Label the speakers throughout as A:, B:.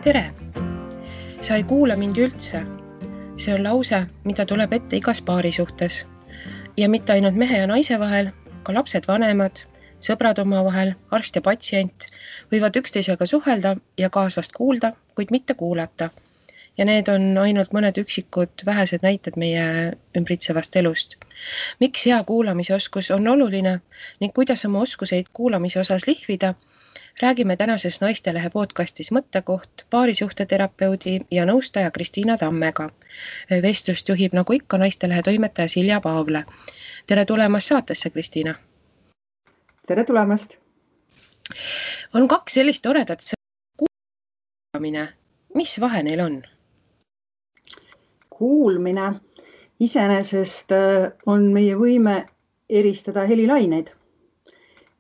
A: Tere! Sa ei kuula mind üldse. See on lause, mida tuleb ette igas paari suhtes. Ja mitte ainult mehe ja naise vahel, ka lapsed vanemad, sõbrad omavahel, arst ja patsient võivad üksteisega suhelda ja kaaslast kuulda, kuid mitte kuulata. Ja need on ainult mõned üksikud vähesed näited meie ümbritsevast elust. Miks hea kuulamisoskus on oluline ning kuidas oma oskuseid kuulamise osas lihvida, räägime tänases Naistelehe podcastis Mõttekoht paarisuhteterapeudi ja nõustaja Kristiina Tammega. Vestlust juhib nagu ikka Naistelehe toimetaja Silja Paavle. Tere tulemast saatesse, Kristiina!
B: Tere tulemast!
A: On kaks sellist toredat kuulamine. Mis vahe neil on?
B: Kuulmine iseenesest on meie võime eristada helilaineid.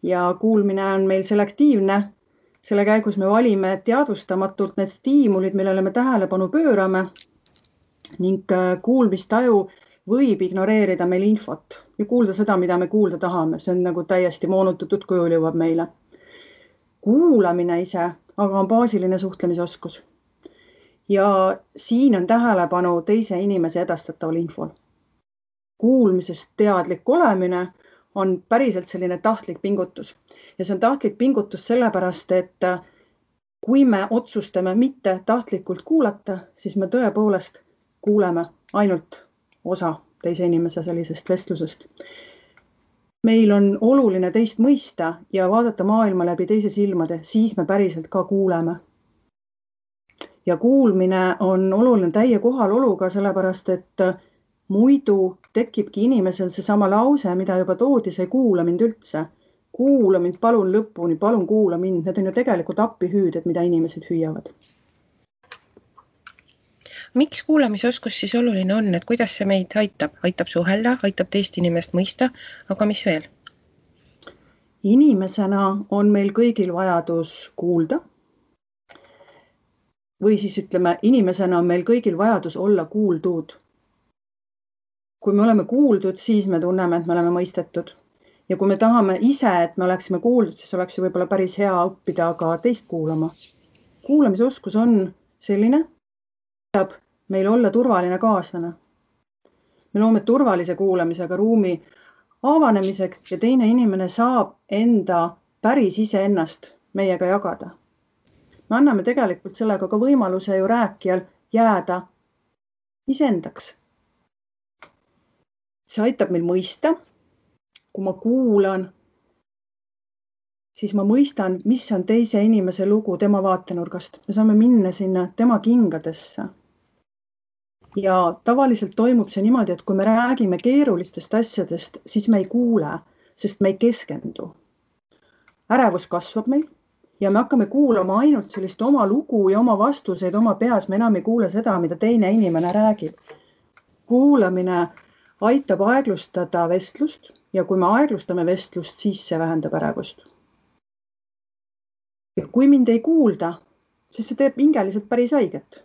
B: Ja kuulmine on meil selektiivne. Selle käigus me valime teadvustamatult need stiimulid, millele me tähelepanu pöörame ning kuulmistaju võib ignoreerida meil infot ja kuulda seda, mida me kuulda tahame. See on nagu täiesti moonutatud kujul jõuab meile. Kuulamine ise aga on baasiline suhtlemisoskus. Ja siin on tähelepanu teise inimese edastataval infol. Kuulmisest teadlik olemine on päriselt selline tahtlik pingutus. Ja see on tahtlik pingutus sellepärast, et kui me otsustame mitte tahtlikult kuulata, siis me tõepoolest kuuleme ainult osa teise inimese sellisest vestlusest. Meil on oluline teist mõista ja vaadata maailma läbi teise silmade, siis me päriselt ka kuuleme. Ja kuulmine on oluline täie kohaloluga, sellepärast et muidu tekibki inimesel see sama lause, mida juba toodi, see kuula mind üldse. Kuula mind, palun lõpuni, palun kuula mind. Need on ju tegelikult appihüüded, mida inimesed hüüavad.
A: Miks kuulamisoskus siis oluline on, et kuidas see meid aitab? Aitab suhelda, aitab teist inimest mõista, aga mis veel?
B: Inimesena on meil kõigil vajadus kuulda. Või siis ütleme, inimesena on meil kõigil vajadus olla kuuldud. Kui me oleme kuuldud, siis me tunneme, et me oleme mõistetud. Ja kui me tahame ise, et me oleksime kuuldud, siis oleks ju võib-olla päris hea õppida ka teist kuulama. Kuulamisoskus on selline, et meil olla turvaline kaaslane. Me loome turvalise kuulamisega ruumi avanemiseks ja teine inimene saab enda päris iseennast meiega jagada. Me anname tegelikult sellega ka võimaluse ju rääkijal jääda iseendaks. See aitab meil mõista. Kui ma kuulan, siis ma mõistan, mis on teise inimese lugu tema vaatenurgast. Me saame minna sinna tema kingadesse. Ja tavaliselt toimub see niimoodi, et kui me räägime keerulistest asjadest, siis me ei kuule, sest me ei keskendu. Ärevus kasvab meil ja me hakkame kuulama ainult sellist oma lugu ja oma vastuseid oma peas. Me enam ei kuule seda, mida teine inimene räägib. Kuulamine aitab aeglustada vestlust ja kui me aeglustame vestlust, siis see vähendab ärevust. Ja kui mind ei kuulda, siis see teeb hingeliselt päris haiget.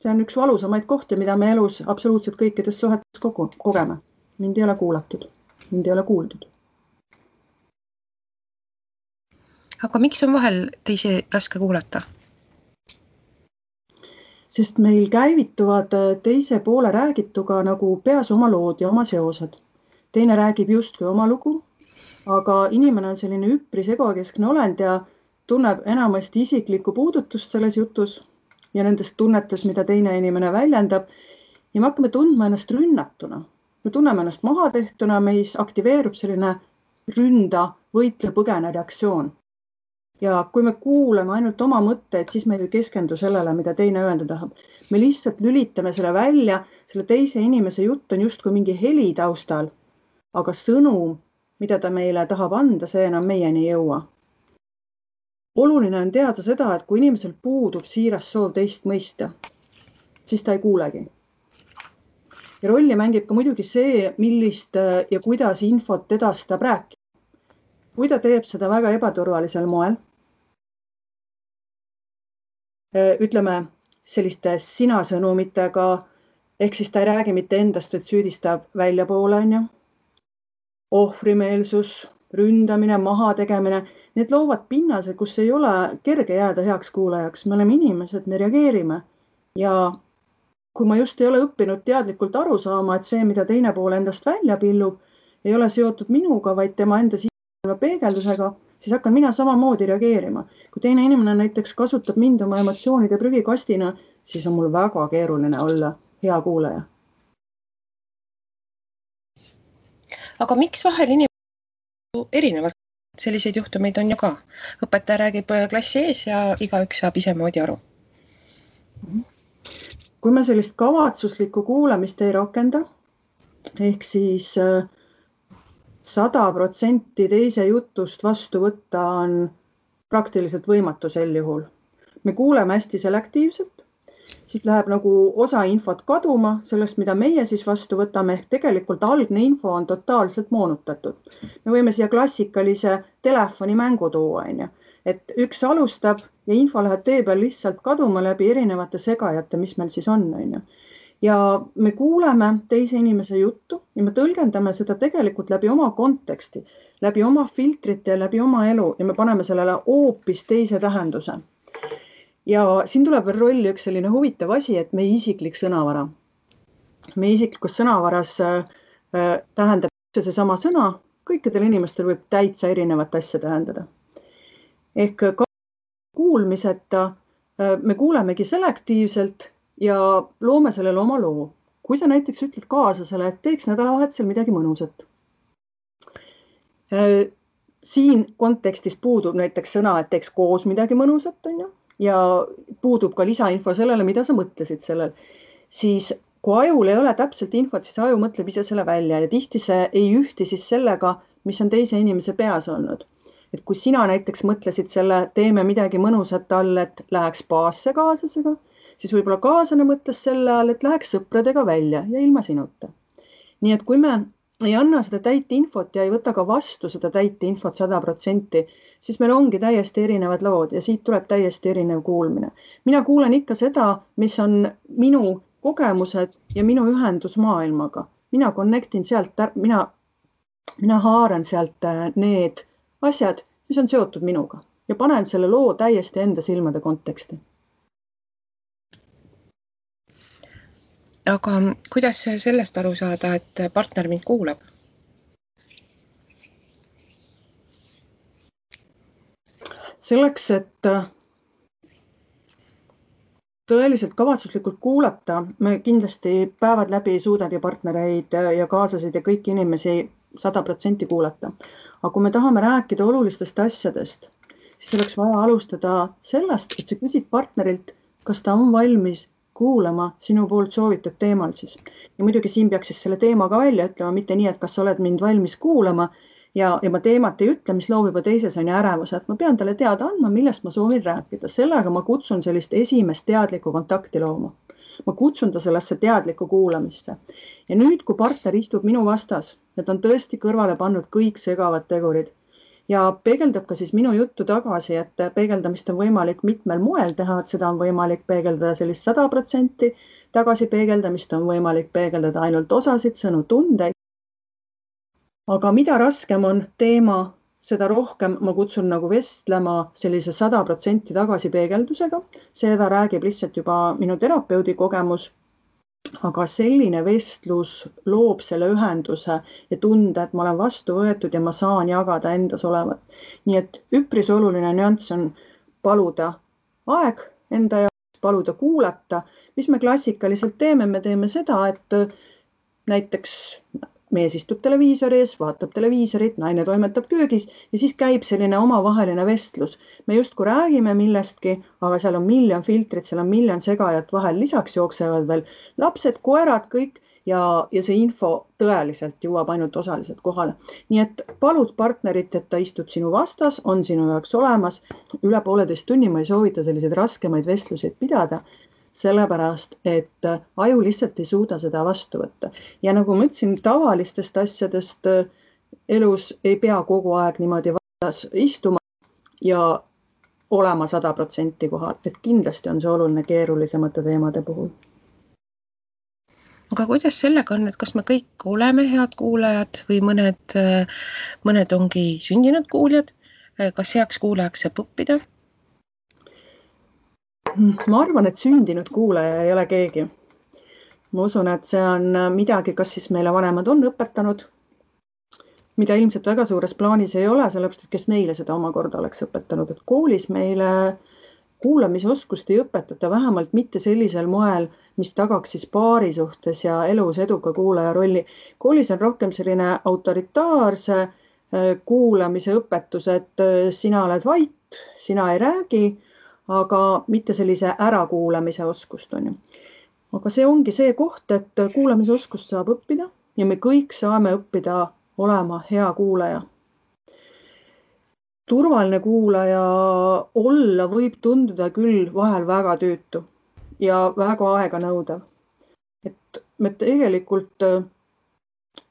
B: See on üks valusamaid kohti, mida me elus absoluutselt kõikides suhetes kogeme. Mind ei ole kuulatud, mind ei ole kuuldud.
A: Aga miks on vahel teisi raske kuulata?
B: Sest meil käivituvad teise poole räägituga nagu peas oma lood ja oma seosed. Teine räägib justkui oma lugu, aga inimene on selline üpris egokeskne olend ja tunneb enamasti isiklikku puudutust selles jutus ja nendest tunnetes, mida teine inimene väljendab. Ja me hakkame tundma ennast rünnatuna. Me tunneme ennast mahatehtuna, meis aktiveerub selline ründa, võitle, põgene reaktsioon. Ja kui me kuulame ainult oma mõtteid, siis me ei keskendu sellele, mida teine öelda tahab. Me lihtsalt lülitame selle välja, selle teise inimese jutt on justkui mingi heli taustal, aga sõnum, mida ta meile tahab anda, see enam meieni ei jõua. Oluline on teada seda, et kui inimesel puudub siiras soov teist mõista, siis ta ei kuulegi. Ja rolli mängib ka muidugi see, millist ja kuidas infot edastab rääkida. Kui ta teeb seda väga ebaturvalisel moel, ütleme selliste sina-sõnumitega, ehk siis ta ei räägi mitte endast, et süüdistab väljapoole, ohvrimeelsus, ründamine, maha tegemine, need loovad pinnase, kus ei ole kerge jääda heaks kuulajaks. Me oleme inimesed, me reageerime ja kui ma just ei ole õppinud teadlikult aru saama, et see, mida teine pool endast välja pillub, ei ole seotud minuga, vaid tema enda sisemaailma peegeldusega, siis hakkan mina samamoodi reageerima. Kui teine inimene näiteks kasutab mind oma emotsioonide prügikastina, siis on mul väga keeruline olla hea kuulaja.
A: Aga miks vahel inimesed erinevalt? Selliseid juhtumeid on ju ka. Õpetaja räägib klassi ees ja igaüks saab isemoodi aru.
B: Kui me sellist kavatsuslikku kuulamist ei rakenda, ehk siis 100% teise jutust vastu võtta on praktiliselt võimatu sel juhul. Me kuuleme hästi selektiivselt, siit läheb nagu osa infot kaduma sellest, mida meie siis vastu võtame, ehk tegelikult algne info on totaalselt moonutatud. Me võime siia klassikalise telefonimängu tuua, et üks alustab ja info läheb tee peal lihtsalt kaduma läbi erinevate segajate, mis meil siis on. Ja me kuuleme teise inimese juttu ja me tõlgendame seda tegelikult läbi oma konteksti, läbi oma filtrite ja läbi oma elu ja me paneme sellele hoopis teise tähenduse. Ja siin tuleb veel rolli üks selline huvitav asi, et meie isiklik sõnavara. Meie isiklikus sõnavaras tähendab seesama sõna, kõikidel inimestel võib täitsa erinevat asja tähendada. Ehk kuulmiseta me kuulemegi selektiivselt ja loome sellele oma loo. Kui sa näiteks ütled kaaslasele, et teeks nädalavahetusel midagi mõnusat. Siin kontekstis puudub näiteks sõna, et teeks koos midagi mõnusat, ja puudub ka lisainfo sellele, mida sa mõtlesid sellel. Siis kui ajul ei ole täpselt infot, siis aju mõtleb ise selle välja ja tihti see ei ühti siis sellega, mis on teise inimese peas olnud. Et kui sina näiteks mõtlesid selle, teeme midagi mõnusat all, et läheks spaasse kaaslasega, siis võib-olla kaaslane mõtles selle all, et läheks sõpradega välja ja ilma sinuta. Nii et kui me ei anna seda täit infot ja ei võta ka vastu seda täit infot 100%, siis meil ongi täiesti erinevad lood ja siit tuleb täiesti erinev kuulmine. Mina kuulen ikka seda, mis on minu kogemused ja minu ühendus maailmaga. Mina connectin sealt, mina haaran sealt need asjad, mis on seotud minuga ja panen selle loo täiesti enda silmade konteksti.
A: Aga kuidas sellest aru saada, et partner mind kuulab?
B: Selleks, et tõeliselt kavatsuslikult kuulata, me kindlasti päevad läbi ei suudagi partnereid ja kaasasid ja kõiki inimesi 100% kuulata. Aga kui me tahame rääkida olulistest asjadest, siis oleks vaja alustada sellest, et sa küsid partnerilt, kas ta on valmis kuulama sinu poolt soovitud teemal siis. Ja muidugi siin peaks siis selle teema ka välja ütlema, mitte nii, et kas sa oled mind valmis kuulama ja ma teemat ei ütle, mis loob juba teises on ärevuse, et ma pean talle teada andma, millest ma soovin rääkida. Sellega ma kutsun sellist esimest teadlikku kontakti looma. Ma kutsun ta sellesse teadlikku kuulamisse. Ja nüüd, kui partner istub minu vastas, et on tõesti kõrvale pannud kõik segavad tegurid ja peegeldab ka siis minu juttu tagasi, et peegeldamist on võimalik mitmel moel teha, et seda on võimalik peegeldada sellist 100%, tagasi peegeldamist on võimalik peegeldada ainult osasid, sõnu, tundeid. Aga mida raskem on teema, seda rohkem ma kutsun nagu vestlema sellise 100% tagasi peegeldusega. Seda räägib lihtsalt juba minu terapeudi kogemus. Aga selline vestlus loob selle ühenduse ja tunde, et ma olen vastu võetud ja ma saan jagada endas olevat. Nii et üpris oluline nüanss on paluda aeg enda jaoks, paluda kuulata. Mis me klassikaliselt teeme? Me teeme seda, et näiteks mees istub televiisori ees, vaatab televiisorit, naine toimetab köögis ja siis käib selline omavaheline vestlus. Me justkui räägime millestki, aga seal on miljon filtrit, seal on miljon segajat vahel, lisaks jooksevad veel lapsed, koerad, kõik ja see info tõeliselt jõuab ainult osaliselt kohale. Nii et palud partnerit, et ta istub sinu vastas, on sinu jaoks olemas. Üle 1,5 tunni ma ei soovita selliseid raskemaid vestluseid pidada, sellepärast, et aju lihtsalt ei suuda seda vastu võtta. Ja nagu ma ütlesin, tavalistest asjadest elus ei pea kogu aeg niimoodi vastas istuma ja olema 100% kohal, et kindlasti on see oluline keerulisemate teemade puhul.
A: aga kuidas sellega on, et kas me kõik oleme head kuulajad või mõned ongi sündinud kuuljad, kas heaks kuulajaks saab õppida?
B: Ma arvan, et sündinud kuulaja ei ole keegi. Ma usun, et see on midagi, kas siis meile vanemad on õpetanud, mida ilmselt väga suures plaanis ei ole, sellepärast, et kes neile seda omakorda oleks õpetanud, et koolis meile kuulamisoskust ei õpetata, vähemalt mitte sellisel moel, mis tagaks siis paari suhtes ja elus eduka kuulaja rolli. Koolis on rohkem selline autoritaarse kuulamise õpetus, et sina oled vait, sina ei räägi, aga mitte sellise ärakuulamise oskust on ju. Aga see ongi see koht, et kuulamisoskust saab õppida ja me kõik saame õppida olema hea kuulaja. Turvaline kuulaja olla võib tunduda küll vahel väga tüütu ja väga aeganõudev. Et me tegelikult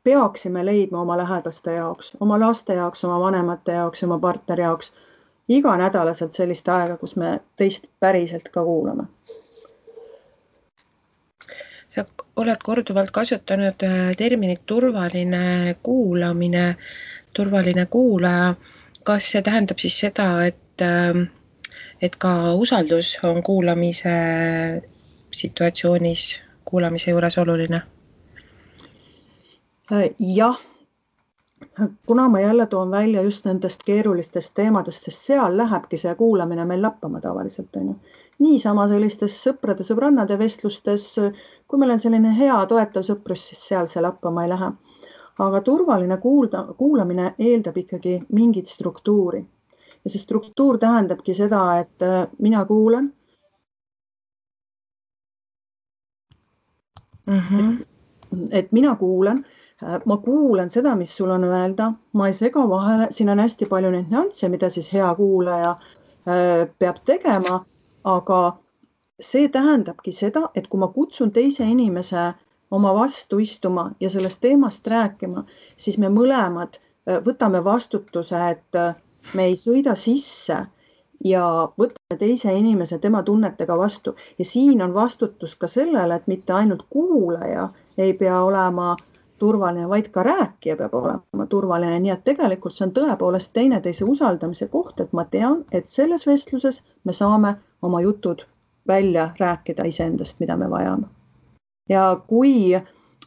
B: peaksime leidma oma lähedaste jaoks, oma laste jaoks, oma vanemate jaoks, oma partneri jaoks iganädalaselt sellist aega, kus me teist päriselt ka kuulame.
A: Sa oled korduvalt kasutanud terminit turvaline kuulamine, turvaline kuulaja. Kas see tähendab siis seda, et ka usaldus on kuulamise situatsioonis, kuulamise juures oluline?
B: Jah, kuna ma jälle toon välja just nendest keerulistest teemadest, sest seal lähebki see kuulamine meil lappama tavaliselt. Niisama sellistes sõprade-sõbrannade vestlustes, kui meil on selline hea toetav sõprus, siis seal see lappama ei lähe. Aga turvaline kuulamine eeldab ikkagi mingit struktuuri. Ja see struktuur tähendabki seda, et mina kuulan. Et mina kuulan, ma kuulan seda, mis sul on öelda, ma ei sega vahele, siin on hästi palju neid nüansse, mida siis hea kuulaja peab tegema, aga see tähendabki seda, et kui ma kutsun teise inimese oma vastu istuma ja sellest teemast rääkima, siis me mõlemad võtame vastutuse, et me ei sõida sisse ja võtame teise inimese tema tunnetega vastu. Ja siin on vastutus ka sellele, et mitte ainult kuulaja ei pea olema turvaline, vaid ka rääkija peab olema turvaline. Nii et tegelikult see on tõepoolest teineteise usaldamise koht, et ma tean, et selles vestluses me saame oma jutud välja rääkida iseendast, mida me vajame. Ja kui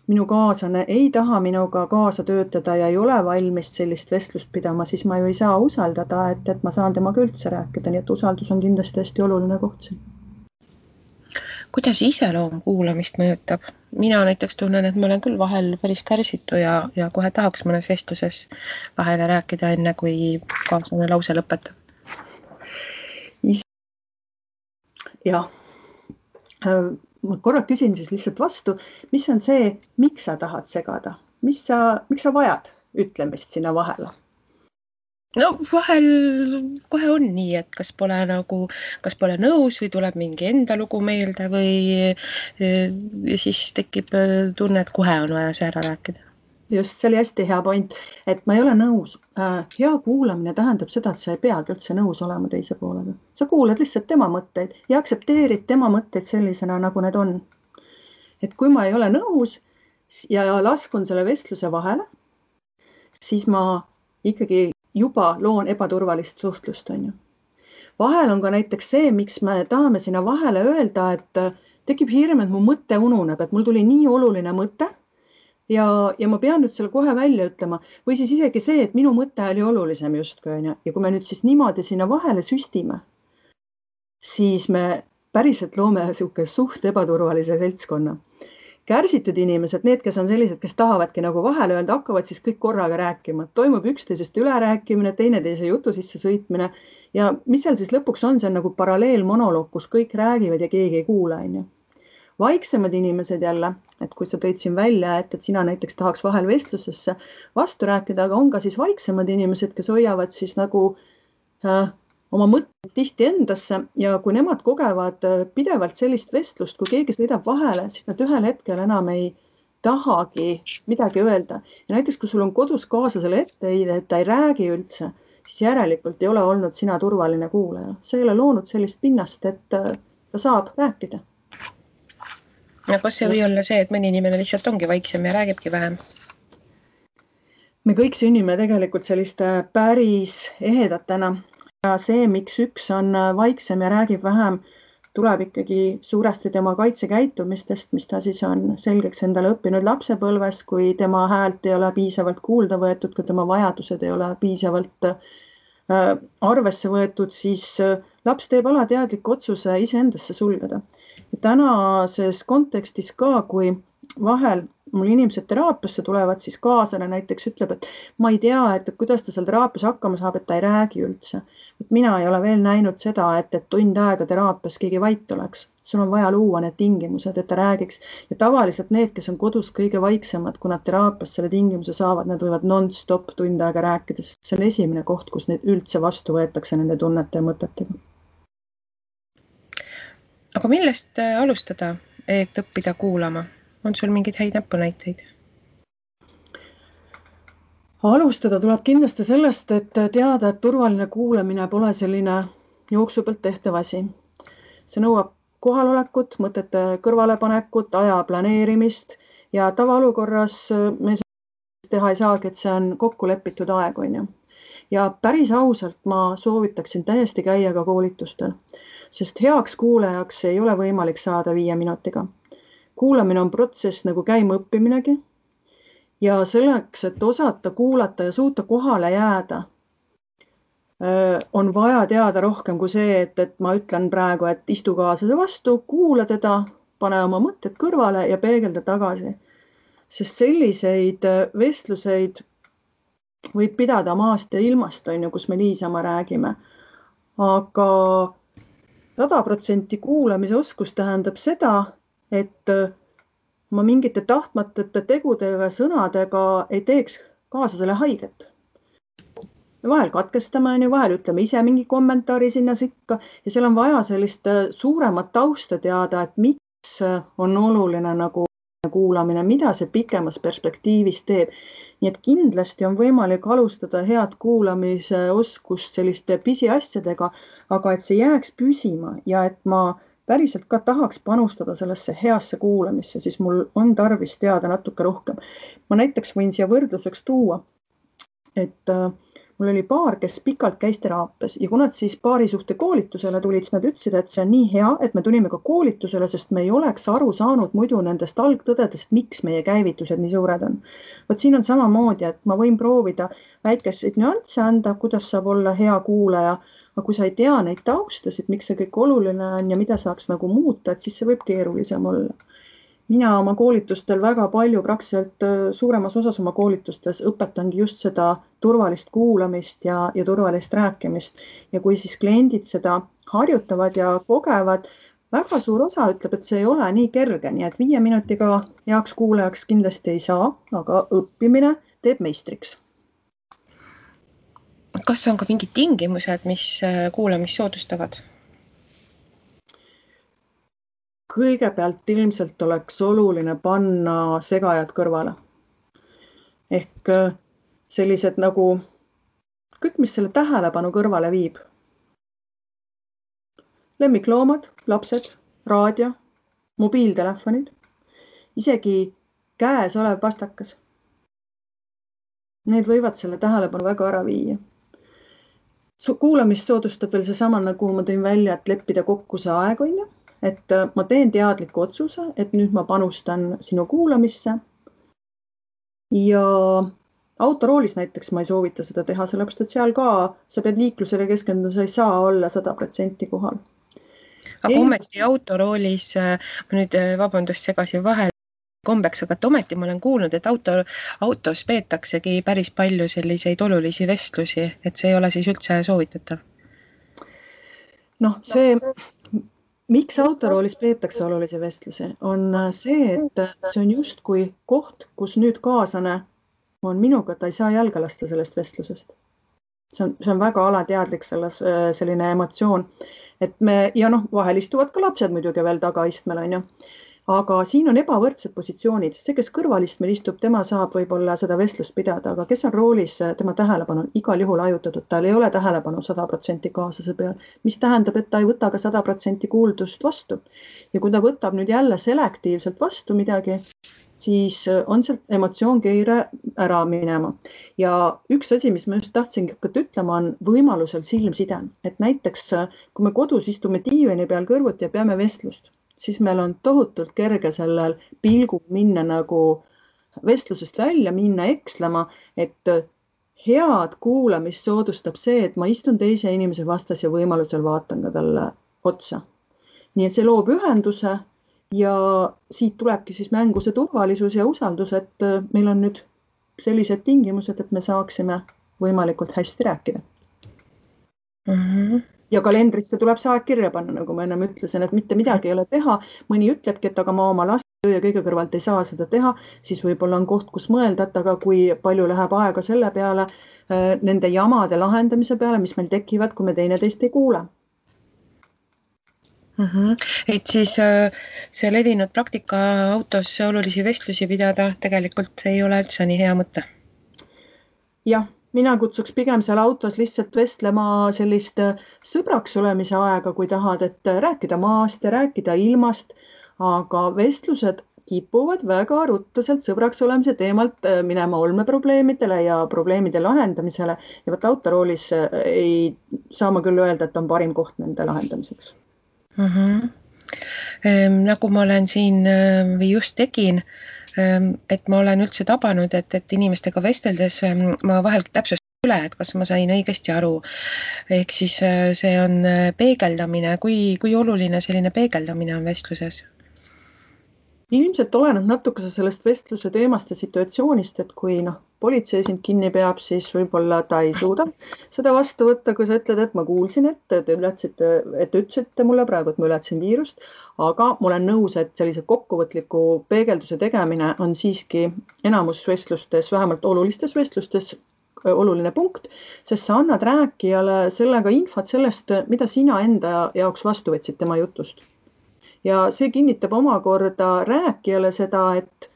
B: minu kaaslane ei taha minuga kaasa töötada ja ei ole valmis sellist vestlust pidama, siis ma ju ei saa usaldada, et ma saan temaga üldse rääkida, nii et usaldus on kindlasti hästi oluline koht siin.
A: Kuidas iseloom kuulamist mõjutab? Mina näiteks tunnen, et ma olen küll vahel päris kärsitu ja kohe tahaks mõnes vestluses vahele rääkida enne, kui kaaslane lause lõpetab.
B: Jah. Ma korra küsin siis lihtsalt vastu, mis on see, miks sa tahad segada? Miks sa vajad ütlemist sinna vahele?
A: No vahel kohe on nii, et kas pole nõus või tuleb mingi enda lugu meelde või siis tekib tunne, et kohe on vaja see ära rääkida. Just, see oli hästi hea point, et ma ei ole nõus. Hea kuulamine tähendab seda, et sa ei peagi üldse nõus olema teise poolega. Sa kuulad lihtsalt tema mõtteid ja aksepteerid tema mõtteid sellisena, nagu need on. Et kui ma ei ole nõus ja laskun selle vestluse vahele, siis ma ikkagi juba loon ebaturvalist suhtlust, on ju. Vahel on ka näiteks see, miks me tahame sinna vahele öelda, et tekib hirm, et mu mõte ununeb, et mul tuli nii oluline mõte, ja ma pean nüüd selle kohe välja ütlema. Või siis isegi see, et minu mõte oli olulisem justkui, on ju. Ja kui me nüüd siis niimoodi sinna vahele süstime, siis me päriselt loome suht ebaturvalise seltskonna. Kärsitud inimesed, need, kes on sellised, kes tahavadki nagu vahele öelda, hakkavad siis kõik korraga rääkima. Toimub üksteisest ülerääkimine, teineteise jutu sisse sõitmine ja mis seal siis lõpuks on, see on nagu paralleelmonoloog, kus kõik räägivad ja keegi ei kuula, on ju. Vaiksemad inimesed jälle, et kui sa tõid siin välja, et sina näiteks tahaks vahel vestlusesse vastu rääkida, aga on ka siis vaiksemad inimesed, kes hoiavad siis nagu oma mõtteid tihti endasse ja kui nemad kogevad pidevalt sellist vestlust, kui keegi sõidab vahele, siis nad ühel hetkel enam ei tahagi midagi öelda. Ja näiteks, kui sul on kodus kaaslasele etteheide, et ta ei räägi üldse, siis järelikult ei ole olnud sina turvaline kuulaja. Sa ei ole loonud sellist pinnast, et ta saab rääkida. Ja kas see või olla see, et mõni inimene lihtsalt ongi vaiksem ja räägibki vähem?
B: Me kõik sünnime tegelikult selliste päris ehedatena ja see, miks üks on vaiksem ja räägib vähem, tuleb ikkagi suuresti tema kaitsekäitumistest, mis ta siis on selgeks endale õppinud lapsepõlves, kui tema häält ei ole piisavalt kuulda võetud, kui tema vajadused ei ole piisavalt arvesse võetud, siis laps teeb alateadliku otsuse iseendasse sulgeda. Ja tänases kontekstis ka, kui vahel mul inimesed teraapiasse tulevad, siis kaaslane näiteks ütleb, et ma ei tea, et kuidas ta seal teraapias hakkama saab, et ta ei räägi üldse. Et mina ei ole veel näinud seda, et tund aega teraapias keegi vait oleks. Sul on vaja luua need tingimused, et ta räägiks. Ja tavaliselt need, kes on kodus kõige vaiksemad, kui nad teraapias selle tingimuse saavad, nad võivad non-stop tund aega rääkida, sest see on esimene koht, kus neid üldse vastu võetakse nende tunnete ja mõtetega.
A: Aga millest alustada, et õppida kuulama? On sul mingid häid näpunäiteid?
B: Alustada tuleb kindlasti sellest, et teada, et turvaline kuulamine pole selline jooksu pealt tehtav asi. See nõuab kohalolekut, mõtete kõrvalepanekut, aja planeerimist ja tavaolukorras me teha ei saagi, et see on kokku lepitud aeg, on ju. Ja päris ausalt ma soovitaksin täiesti käia ka koolitustel, sest heaks kuulajaks ei ole võimalik saada 5 minutiga. Kuulamine on protsess nagu käima õppiminegi ja selleks, et osata kuulata ja suuta kohale jääda, on vaja teada rohkem kui see, et ma ütlen praegu, et istu kaaslase vastu, kuula teda, pane oma mõtted kõrvale ja peegelda tagasi. Sest selliseid vestluseid võib pidada maast ja ilmast, on ju, kus me niisama räägime. Aga 100% kuulamise oskus tähendab seda, et ma mingite tahtmatute tegudega, sõnadega ei teeks kaaslasele haiget. Vahel katkestame, vahel ütleme ise mingi kommentaari sinna sikka ja seal on vaja sellist suuremat tausta teada, et miks on oluline nagu kuulamine, mida see pikemas perspektiivis teeb. Nii et kindlasti on võimalik alustada head kuulamise oskust selliste pisiasjadega, aga et see jääks püsima ja et ma päriselt ka tahaks panustada sellesse heasse kuulamisse, siis mul on tarvis teada natuke rohkem. Ma näiteks võin siia võrdluseks tuua, et mul oli paar, kes pikalt käis teraapias ja kui nad siis paarisuhte koolitusele tulid, siis nad ütlesid, et see on nii hea, et me tulime ka koolitusele, sest me ei oleks aru saanud muidu nendest algtõdedest, miks meie käivitused nii suured on. Võt siin on samamoodi, et ma võin proovida väikeseid nüansse anda, kuidas saab olla hea kuulaja, aga kui sa ei tea neid taustasid, miks see kõik oluline on ja mida saaks nagu muuta, et siis see võib keerulisem olla. Mina oma koolitustel väga palju, praktiliselt suuremas osas oma koolitustes õpetangi just seda turvalist kuulamist ja turvalist rääkimist. Ja kui siis kliendid seda harjutavad ja kogevad, väga suur osa ütleb, et see ei ole nii kerge, nii et 5 minutiga heaks kuulajaks kindlasti ei saa, aga õppimine teeb meistriks.
A: Kas on ka mingid tingimused, mis kuulamist soodustavad?
B: Kõigepealt ilmselt oleks oluline panna segajad kõrvale. Ehk sellised nagu kõik, mis selle tähelepanu kõrvale viib. Lemmikloomad, lapsed, raadio, mobiiltelefonid, isegi käes olev pastakas. Need võivad selle tähelepanu väga ära viia. Kuulamist soodustab veel seesama, nagu ma tõin välja, et leppida kokku see aeg, on ju. Et ma teen teadliku otsuse, et nüüd ma panustan sinu kuulamisse ja autoroolis näiteks ma ei soovita seda teha, sellepärast, et seal ka sa pead liiklusele keskenduda, sa ei saa olla 100% kohal.
A: Aga ometi autoroolis, ma nüüd vabandust segasin vahel kombeks, aga ometi ma olen kuulnud, et autos peetaksegi päris palju selliseid olulisi vestlusi, et see ei ole siis üldse soovitatav.
B: See miks autoroolis peetakse olulisi vestlusi, on see, et see on justkui koht, kus nüüd kaaslane on minuga, ta ei saa jalga lasta sellest vestlusest. See on väga alateadlik selline emotsioon, et ja vahel istuvad ka lapsed muidugi veel tagaistmel, on ju. aga siin on ebavõrdsed positsioonid. See, kes kõrvalistmel istub, tema saab võib-olla seda vestlust pidada, aga kes on roolis, tema tähelepanu on igal juhul hajutatud, tal ei ole tähelepanu 100% kaaslase peal, mis tähendab, et ta ei võta ka 100% kuuldust vastu. Ja kui ta võtab nüüd jälle selektiivselt vastu midagi, siis on sealt emotsioonkeire ära minema. Ja üks asi, mis ma just tahtsingi hakata ütlema, on võimalusel silmside. Et näiteks, kui me kodus istume diivani peal kõrvuti ja peame vestlust, siis meil on tohutult kerge sellel pilgul minna nagu vestlusest välja, minna ekslema, et head kuulamist soodustab see, et ma istun teise inimese vastas ja võimalusel vaatan ka talle otsa. Nii et see loob ühenduse ja siit tulebki siis mängu see turvalisus ja usaldus, et meil on nüüd sellised tingimused, et me saaksime võimalikult hästi rääkida. Ja kalendrisse tuleb see aeg kirja panna, nagu ma ennem ütlesin, et mitte midagi ei ole teha. Mõni ütlebki, et aga ma oma laste töö ja kõige kõrvalt ei saa seda teha, siis võib-olla on koht, kus mõelda, et aga kui palju läheb aega selle peale, nende jamade lahendamise peale, mis meil tekivad, kui me teineteist ei kuule.
A: Et siis see levinud praktika autos olulisi vestlusi pidada tegelikult ei ole üldse nii hea mõte.
B: Jah, mina kutsuks pigem seal autos lihtsalt vestlema sellist sõbraks olemise aega, kui tahad, et rääkida maast ja rääkida ilmast, aga vestlused kipuvad väga ruttu sealt sõbraks olemise teemalt minema olmeprobleemidele ja probleemide lahendamisele ja võt autoroolis ei saa ma küll öelda, et on parim koht nende lahendamiseks.
A: Nagu ma olen siin või just tegin, et ma olen üldse tabanud, et inimestega vesteldes ma vahel täpsustan üle, et kas ma sain õigesti aru. Ehk siis see on peegeldamine, kui oluline selline peegeldamine on vestluses?
B: Ilmselt oleneb natuke sellest vestluse teemast ja situatsioonist, et kui politsei sind kinni peab, siis võib-olla ta ei suuda seda vastu võtta, kui sa ütled, et ma kuulsin, et te ütlesite mulle praegu, et ma ületasin viirust, aga ma olen nõus, et sellise kokkuvõtliku peegelduse tegemine on siiski enamus vestlustes, vähemalt olulistes vestlustes oluline punkt, sest sa annad rääkijale sellega infot sellest, mida sina enda jaoks vastu võtsid tema jutust. Ja see kinnitab omakorda rääkijale seda, et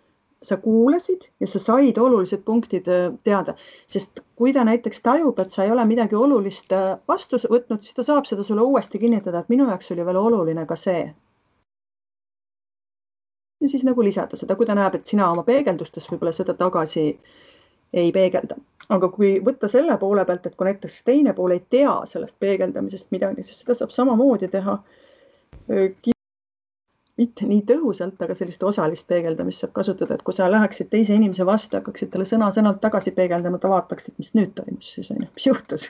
B: sa kuulasid ja sa said olulised punktid teada. Sest kui ta näiteks tajub, et sa ei ole midagi olulist vastu võtnud, siis ta saab seda sulle uuesti kinnitada, et minu jaoks oli veel oluline ka see. Ja siis nagu lisada seda, kui ta näeb, et sina oma peegeldustes võib-olla seda tagasi ei peegelda. Aga kui võtta selle poole pealt, et kui näiteks teine pool ei tea sellest peegeldamisest midagi, siis seda saab samamoodi teha mitte nii tõhusalt, aga sellist osalist peegeldamist saab kasutada, et kui sa läheksid teise inimese vastu, hakkaksid talle sõna-sõnalt tagasi peegeldama, ta vaataksid, mis nüüd toimus siis, mis juhtus.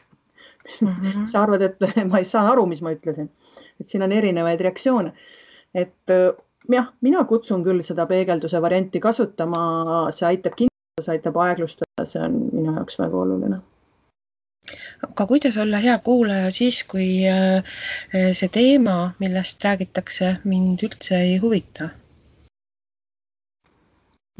B: Sa arvad, et ma ei saa aru, mis ma ütlesin. Et siin on erinevaid reaktsioone. Et jah, mina kutsun küll seda peegelduse varianti kasutama, see aitab kindlustada, see aitab aeglustada, see on minu jaoks väga oluline.
A: Aga kuidas olla hea kuulaja siis, kui see teema, millest räägitakse, mind üldse ei huvita?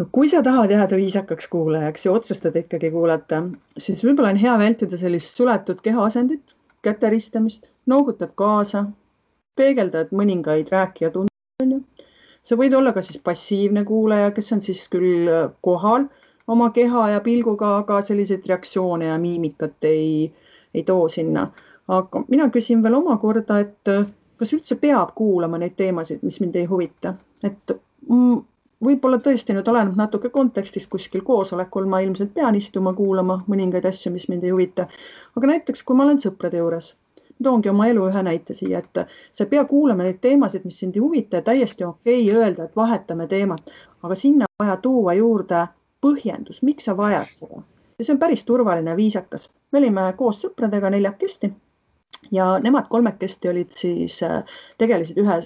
B: No kui sa tahad jääda viisakaks kuulajaks ja otsustad ikkagi kuulata, siis võib-olla on hea vältida sellist suletud kehaasendit, käteristamist, noogutad kaasa, peegeldad mõningaid rääkija tunde. Sa võid olla ka siis passiivne kuulaja, kes on siis küll kohal oma keha ja pilguga, aga selliseid reaktsioone ja miimikat ei too sinna. Aga mina küsin veel omakorda, et kas üldse peab kuulama neid teemasid, mis mind ei huvita. Et võib-olla tõesti nüüd oleneb natuke kontekstis kuskil koosolekul, ma ilmselt pean istuma kuulama mõningaid asju, mis mind ei huvita. Aga näiteks, kui ma olen sõprade juures, toongi oma elu ühe näite siia, et sa ei pea kuulama neid teemasid, mis sind ei huvita ja täiesti okei öelda, et vahetame teemat, aga sinna vaja tuua juurde põhjendus, miks sa vajad seda. Ja see on päris turvaline viisakas. Me olime koos sõpradega 4 ja nemad 3 olid siis, tegelesid ühe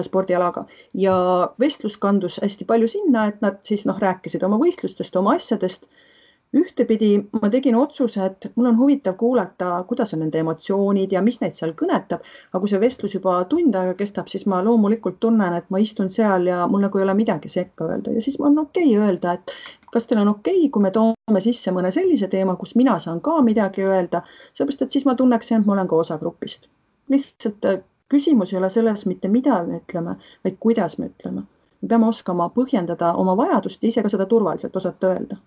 B: spordialaga ja vestlus kandus hästi palju sinna, et nad siis rääkisid oma võistlustest, oma asjadest. Ühtepidi ma tegin otsuse, et mul on huvitav kuulata, kuidas on nende emotsioonid ja mis neid seal kõnetab, aga kui see vestlus juba tund aega kestab, siis ma loomulikult tunnen, et ma istun seal ja mul nagu ei ole midagi sekka öelda ja siis on okei öelda, et kas teil on okei, kui me toome sisse mõne sellise teema, kus mina saan ka midagi öelda, sellepärast, et siis ma tunneksin, et ma olen ka osa grupist. Lihtsalt Küsimus ei ole selles mitte mida me ütleme, vaid kuidas me ütleme. Me peame oskama põhjendada oma vajadust ja ise ka seda turvaliselt osata öelda.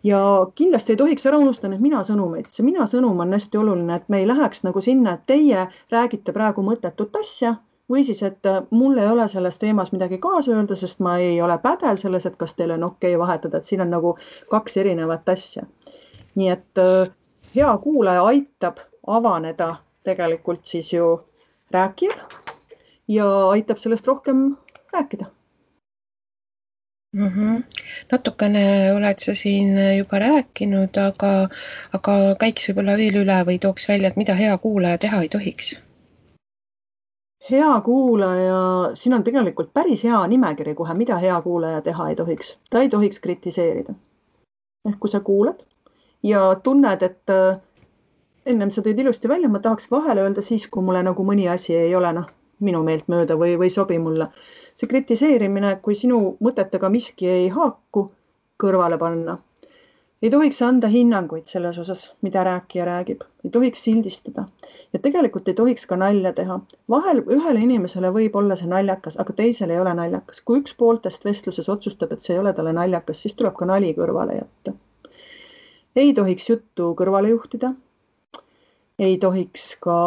B: Ja kindlasti ei tohiks ära unustada need mina-sõnumeid. See mina-sõnum on hästi oluline, et me ei läheks nagu sinna, et teie räägite praegu mõttetut asja või siis, et mul ei ole selles teemas midagi kaasa öelda, sest ma ei ole pädev selles, et kas teil on okei vahetada, et siin on nagu 2 erinevat asja. Nii et hea kuulaja aitab avaneda tegelikult siis ju rääkijal ja aitab sellest rohkem rääkida.
A: Natukene oled sa siin juba rääkinud, aga käiks võib-olla veel üle või tooks välja, et mida hea kuulaja teha ei tohiks?
B: Hea kuulaja, siin on tegelikult päris hea nimekiri kohe, mida hea kuulaja teha ei tohiks. Ta ei tohiks kritiseerida. Ehk kui sa kuulad ja tunned, et ennem sa tõid ilusti välja, ma tahaks vahele öelda siis, kui mulle nagu mõni asi ei ole minu meelt mööda või sobi mulle. See kritiseerimine, kui sinu mõtetega miski ei haaku, kõrvale panna. Ei tohiks anda hinnanguid selles osas, mida rääkija räägib. Ei tohiks sildistada. Ja tegelikult ei tohiks ka nalja teha. Vahel ühele inimesele võib olla see naljakas, aga teisele ei ole naljakas. Kui üks pooltest vestluses otsustab, et see ei ole talle naljakas, siis tuleb ka nali kõrvale jätta. Ei tohiks juttu kõrvale juhtida. Ei tohiks ka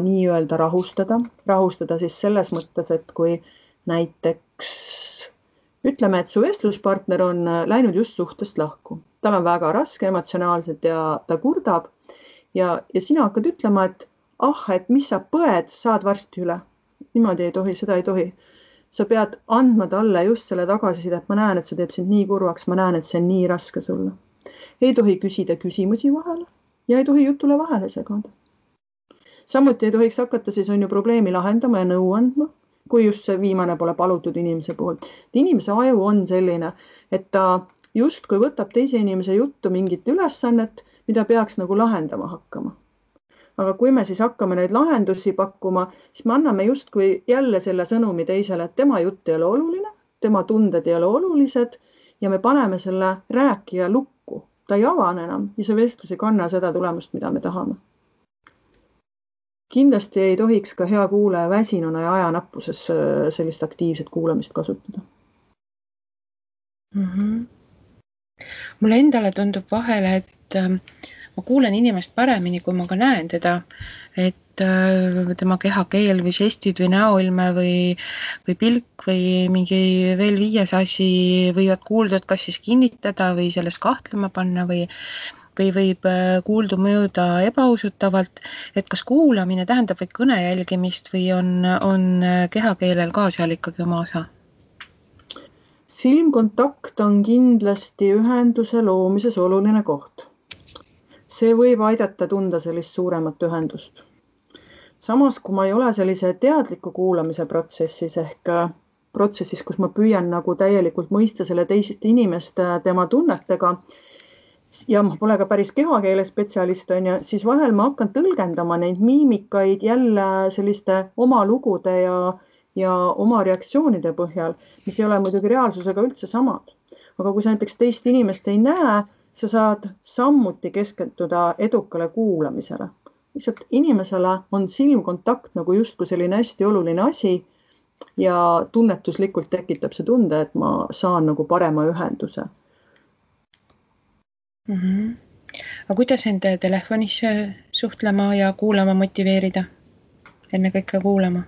B: nii-öelda rahustada. Rahustada siis selles mõttes, et kui näiteks ütleme, et su vestluspartner on läinud just suhtest lahku. Tal on väga raske emotsionaalselt ja ta kurdab ja sina hakkad ütlema, et mis sa põed, saad varsti üle. Niimoodi ei tohi, seda ei tohi. Sa pead andma talle just selle tagasiside, et ma näen, et see teeb sind nii kurvaks, ma näen, et see on nii raske sulle. Ei tohi küsida küsimusi vahele ja ei tohi jutule vahele segada. Samuti ei tohiks hakata siis on ju probleemi lahendama ja nõu andma, kui just see viimane pole palutud inimese poolt. Inimese aju on selline, et ta justkui võtab teise inimese juttu mingit ülesannet, mida peaks nagu lahendama hakkama. Aga kui me siis hakkame neid lahendusi pakkuma, siis me anname justkui jälle selle sõnumi teisele, et tema jutt ei ole oluline, tema tunded ei ole olulised ja me paneme selle rääkija lukku. Ta ei avane enam ja see vestlus ei kanna seda tulemust, mida me tahame. Kindlasti ei tohiks ka hea kuulaja väsinuna ja ajanappuses sellist aktiivset kuulamist kasutada.
A: Mulle endale tundub vahele, et ma kuulen inimest paremini, kui ma ka näen teda, et tema kehakeel või žestid või näoilme või pilk või mingi veel 5 asi võivad kuuldud kas siis kinnitada või selles kahtlema panna või võib kuuldu mõjuda ebausutavalt, et kas kuulamine tähendab vaid kõne jälgimist või on kehakeelel ka seal ikkagi oma osa?
B: Silmkontakt on kindlasti ühenduse loomises oluline koht. See võib aidata tunda sellist suuremat ühendust. Samas, kui ma ei ole sellise teadliku kuulamise protsessis ehk protsessis, kus ma püüan nagu täielikult mõista selle teisest inimest tema tunnetega ja ma pole ka päris kehakeele spetsialist, siis vahel ma hakkan tõlgendama neid miimikaid jälle selliste oma lugude ja oma reaktsioonide põhjal, mis ei ole muidugi reaalsusega üldse samad. Aga kui sa näiteks teist inimest ei näe, sa saad samuti keskenduda edukale kuulamisele. Lihtsalt inimesele on silmkontakt nagu justkui selline hästi oluline asi ja tunnetuslikult tekitab see tunde, et ma saan nagu parema ühenduse.
A: Aga kuidas enda telefonis suhtlema ja kuulama motiveerida? Enne kõike kuulama?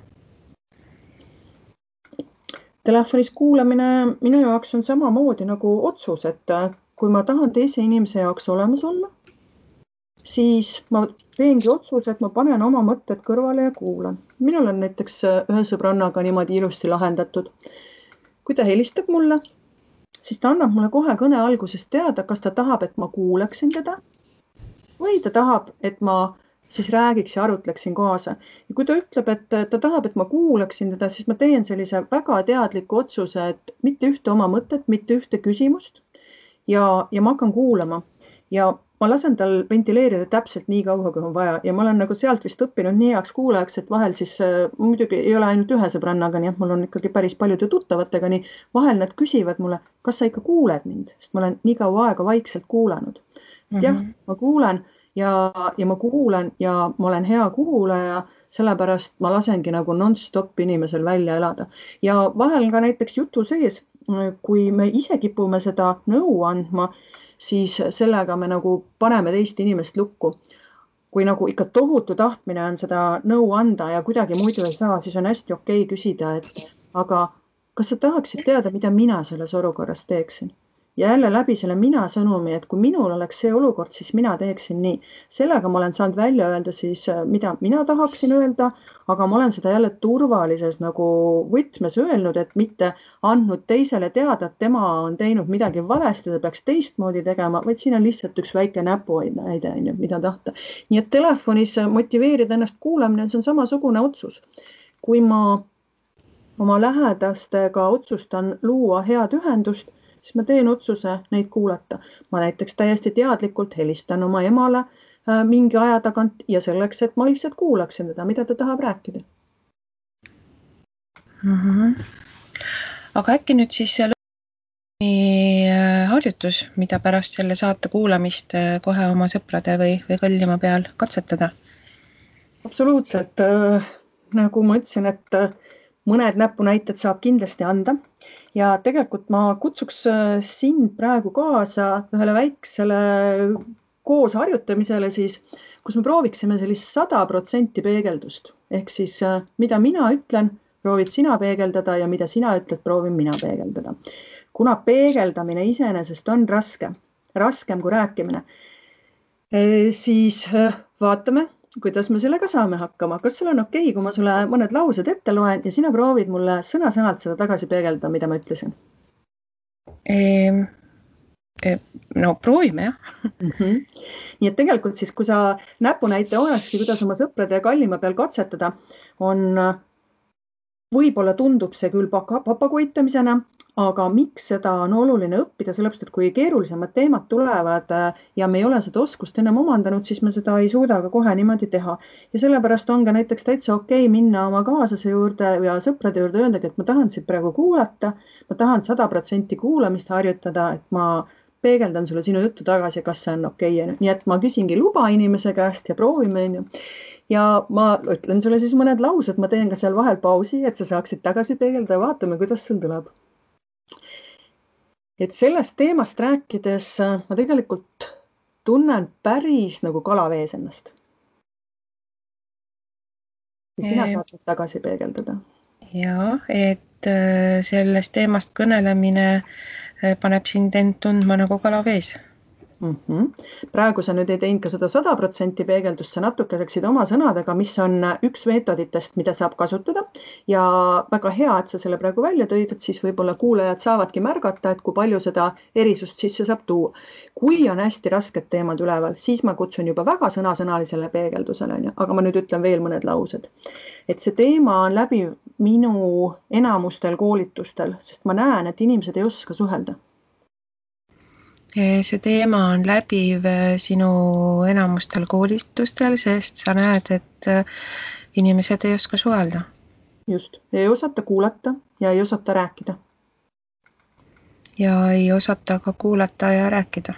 B: Telefonis kuulamine minu jaoks on samamoodi nagu otsus, et kui ma tahan teise inimese jaoks olemas olla, siis ma teengi otsuse, et ma panen oma mõtted kõrvale ja kuulan. Minul on näiteks ühe sõbrannaga niimoodi ilusti lahendatud. Kui ta helistab mulle, siis ta annab mulle kohe kõne algusest teada, kas ta tahab, et ma kuulaksin teda või ta tahab, et ma siis räägiks ja arutleksin kaasa. Ja kui ta ütleb, et ta tahab, et ma kuulaksin teda, siis ma teen sellise väga teadliku otsuse, et mitte ühte oma mõtet, mitte ühte küsimust ja ma hakkan kuulama ja ma lasen tal ventileerida täpselt nii kaua, kui on vaja ja ma olen nagu sealt vist õppinud nii heaks kuulajaks, et vahel siis muidugi ei ole ainult ühe sõbrannaga, nii et mul on ikkagi päris paljude tuttavatega, nii vahel nad küsivad mulle, kas sa ikka kuuled mind, sest ma olen nii kaua aega vaikselt kuulanud. Jah, ma kuulen ja ma kuulan ja ma olen hea kuulaja, sellepärast ma lasengi nagu non-stop inimesel välja elada. Ja vahel ka näiteks jutu sees, kui me ise kipume seda nõu andma, siis sellega me nagu paneme teist inimest lukku. Kui nagu ikka tohutu tahtmine on seda nõu anda ja kuidagi muidu ei saa, siis on hästi okei küsida, et aga kas sa tahaksid teada, mida mina selles olukorras teeksin? Ja jälle läbi selle mina sõnumi, et kui minul oleks see olukord, siis mina teeksin nii. Sellega ma olen saanud välja öelda siis, mida mina tahaksin öelda, aga ma olen seda jälle turvalises nagu võtmes öelnud, et mitte andnud teisele teada, et tema on teinud midagi valesti, ta peaks teistmoodi tegema, vaid siin on lihtsalt üks väike näpuaine, mida tahta. Nii et telefonis motiveerida ennast kuulamine, see on samasugune otsus. Kui ma oma lähedastega otsustan luua head ühendust, siis ma teen otsuse neid kuulata. Ma näiteks täiesti teadlikult helistan oma emale mingi aja tagant ja selleks, et ma lihtsalt kuulaksin teda, mida ta tahab rääkida.
A: Aga äkki nüüd siis see harjutus, mida pärast selle saate kuulamist kohe oma sõprade või kõllima peal katsetada?
B: Absoluutselt. Nagu ma ütlesin, et mõned näpunäited saab kindlasti anda. Ja tegelikult ma kutsuks sind praegu kaasa ühele väiksele koos harjutamisele siis, kus me prooviksime sellist 100% peegeldust. Ehk siis, mida mina ütlen, proovid sina peegeldada ja mida sina ütled, proovin mina peegeldada. Kuna peegeldamine iseenesest on raskem kui rääkimine, siis vaatame, kuidas me sellega saame hakkama. Kas sul on okei, kui ma sulle mõned laused ette loen ja sina proovid mulle sõna-sõnalt seda tagasi peegeldada, mida ma ütlesin?
A: No proovime, jah.
B: Nii et tegelikult siis, kui sa näpunäite olekski, kuidas oma sõprade ja kallima peal katsetada, võib-olla tundub see küll papagoitamisena, aga miks seda on oluline õppida, sellepärast, et kui keerulisemad teemad tulevad ja me ei ole seda oskust ennem omandanud, siis me seda ei suuda ka kohe niimoodi teha. Ja sellepärast on ka näiteks täitsa okei minna oma kaaslase juurde ja sõprade juurde öeldagi, et ma tahan sind praegu kuulata, ma tahan 100% kuulamist harjutada, et ma peegeldan sulle sinu juttu tagasi, kas see on okei. Nii et ma küsingi luba inimese käest ja proovime. Ja ma ütlen sulle siis mõned laused, ma teen ka seal vahel pausi, et sa saaksid tagasi peegelda ja vaatame, kuidas sul tuleb. Et sellest teemast rääkides ma tegelikult tunnen päris nagu kalavees ennast. Ja sina saad tagasi peegeldada.
A: Ja, et sellest teemast kõnelemine paneb sind end tundma nagu kalavees.
B: Praegu sa nüüd ei teinud ka seda 100% peegeldust, sa natuke rääksid oma sõnadega, mis on üks meetoditest, mida saab kasutada ja väga hea, et sa selle praegu välja tõid, et siis võib-olla kuulajad saavadki märgata, et kui palju seda erisust sisse saab tuua. Kui on hästi rasked teemad üleval, siis ma kutsun juba väga sõnasõnalisele peegeldusele, aga ma nüüd ütlen veel mõned laused. Et see teema on läbi minu enamustel koolitustel, sest ma näen, et inimesed ei oska suhelda.
A: See teema on läbiv sinu enamustel koolitustel, sest sa näed, et inimesed ei oska suhelda.
B: Just, ei osata kuulata ja ei osata rääkida.
A: Ja ei osata ka kuulata ja rääkida.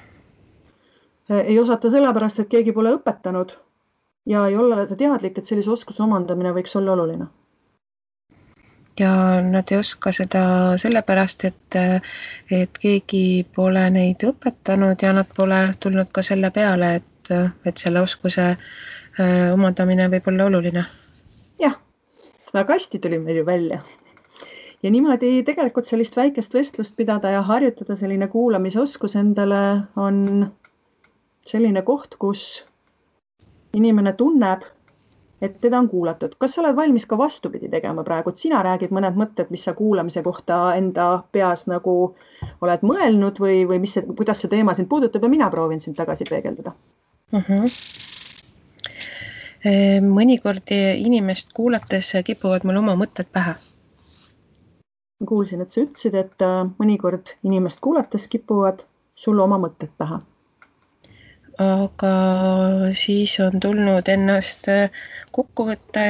B: Ei osata sellepärast, et keegi pole õpetanud ja ei ole teadlik, et sellise oskuse omandamine võiks olla oluline.
A: Ja nad ei oska seda sellepärast, et keegi pole neid õpetanud ja nad pole tulnud ka selle peale, et selle oskuse omandamine võib olla oluline.
B: Jah, väga hästi tuli meil ju välja. Ja niimoodi tegelikult sellist väikest vestlust pidada ja harjutada selline kuulamisoskus endale on selline koht, kus inimene tunneb, et teda on kuulatud. Kas sa oled valmis ka vastupidi tegema praegu, et sina räägid mõned mõtted, mis sa kuulamise kohta enda peas nagu oled mõelnud või kuidas see teema sind puudutab ja mina proovin sind tagasi peegeldada?
A: Mõnikord inimest kuulates kipuvad mul oma mõtted pähe.
B: Ma kuulsin, et sa ütlesid, et mõnikord inimest kuulates kipuvad sul oma mõtted pähe.
A: Aga siis on tulnud ennast kokku võtta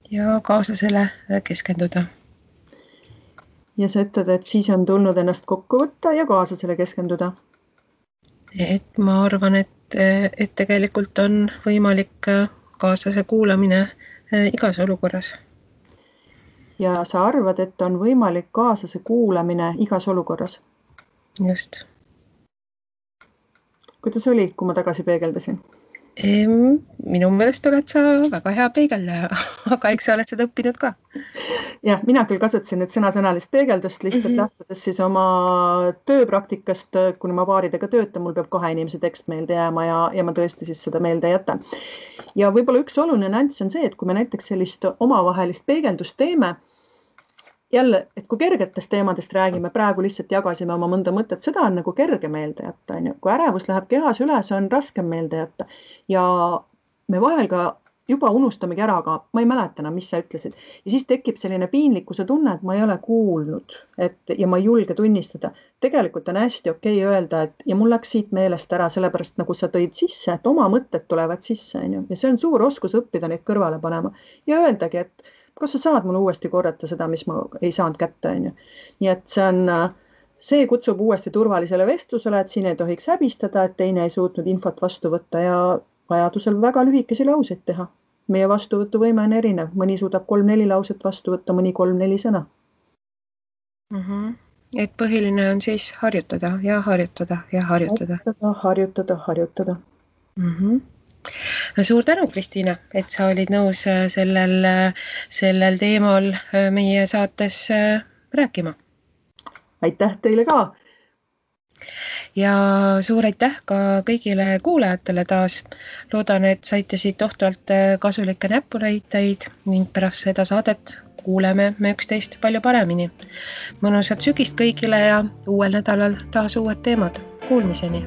A: ja kaaslasele keskenduda.
B: Ja sa ütled, et siis on tulnud ennast kokku võtta ja kaaslasele keskenduda?
A: Et ma arvan, et et tegelikult on võimalik kaaslase kuulamine igas olukorras.
B: Ja sa arvad, et on võimalik kaaslase kuulamine igas olukorras?
A: Just.
B: Kuidas oli, kui ma tagasi peegeldasin?
A: Minu meelest oled sa väga hea peegeldaja, aga eks sa oled seda õppinud ka.
B: Jah, mina küll kasutasin nüüd sõnasõnalist peegeldust lihtsalt lähtudes siis oma tööpraktikast, kuna ma paaridega töötan, mul peab 2 inimese tekst meelde jääma ja ma tõesti siis seda meelde jätan. Ja võib-olla üks oluline nüanss on see, et kui me näiteks sellist omavahelist peegeldust teeme, jälle, et kui kergetest teemadest räägime, praegu lihtsalt jagasime oma mõnda mõtet, seda on nagu kerge meelde jätta. Kui ärevus läheb kehas üle, see on raskem meelde jätta. Ja me vahel ka juba unustamegi ära, aga ma ei mäleta enam, mis sa ütlesid. Ja siis tekib selline piinlikkuse tunne, et ma ei ole kuulnud ja ma ei julge tunnistada. Tegelikult on hästi okei öelda, et ja mul läks siit meelest ära, sellepärast nagu sa tõid sisse, et oma mõtted tulevad sisse. Ja see on suur oskus õppida neid kõrvale panema ja öeldagi, et kas sa saad mulle uuesti korrata seda, mis ma ei saanud kätte. Nii et see kutsub uuesti turvalisele vestlusele, et siin ei tohiks häbistada, et teine ei suutnud infot vastu võtta ja vajadusel väga lühikesi lauseid teha. Meie vastuvõtuvõime on erinev. Mõni suudab 3-4 lauset vastu võtta, mõni 3-4 sõna.
A: Et põhiline on siis harjutada ja harjutada ja harjutada.
B: Harjutada.
A: Suur tänu, Kristiina, et sa olid nõus sellel teemal meie saates rääkima.
B: Aitäh teile ka!
A: Ja suur aitäh ka kõigile kuulajatele taas. Loodan, et saite siit tohtralt kasulikke näpunäiteid ning pärast seda saadet kuuleme me üksteist palju paremini. Mõnusat sügist kõigile ja uuel nädalal taas uued teemad. Kuulmiseni!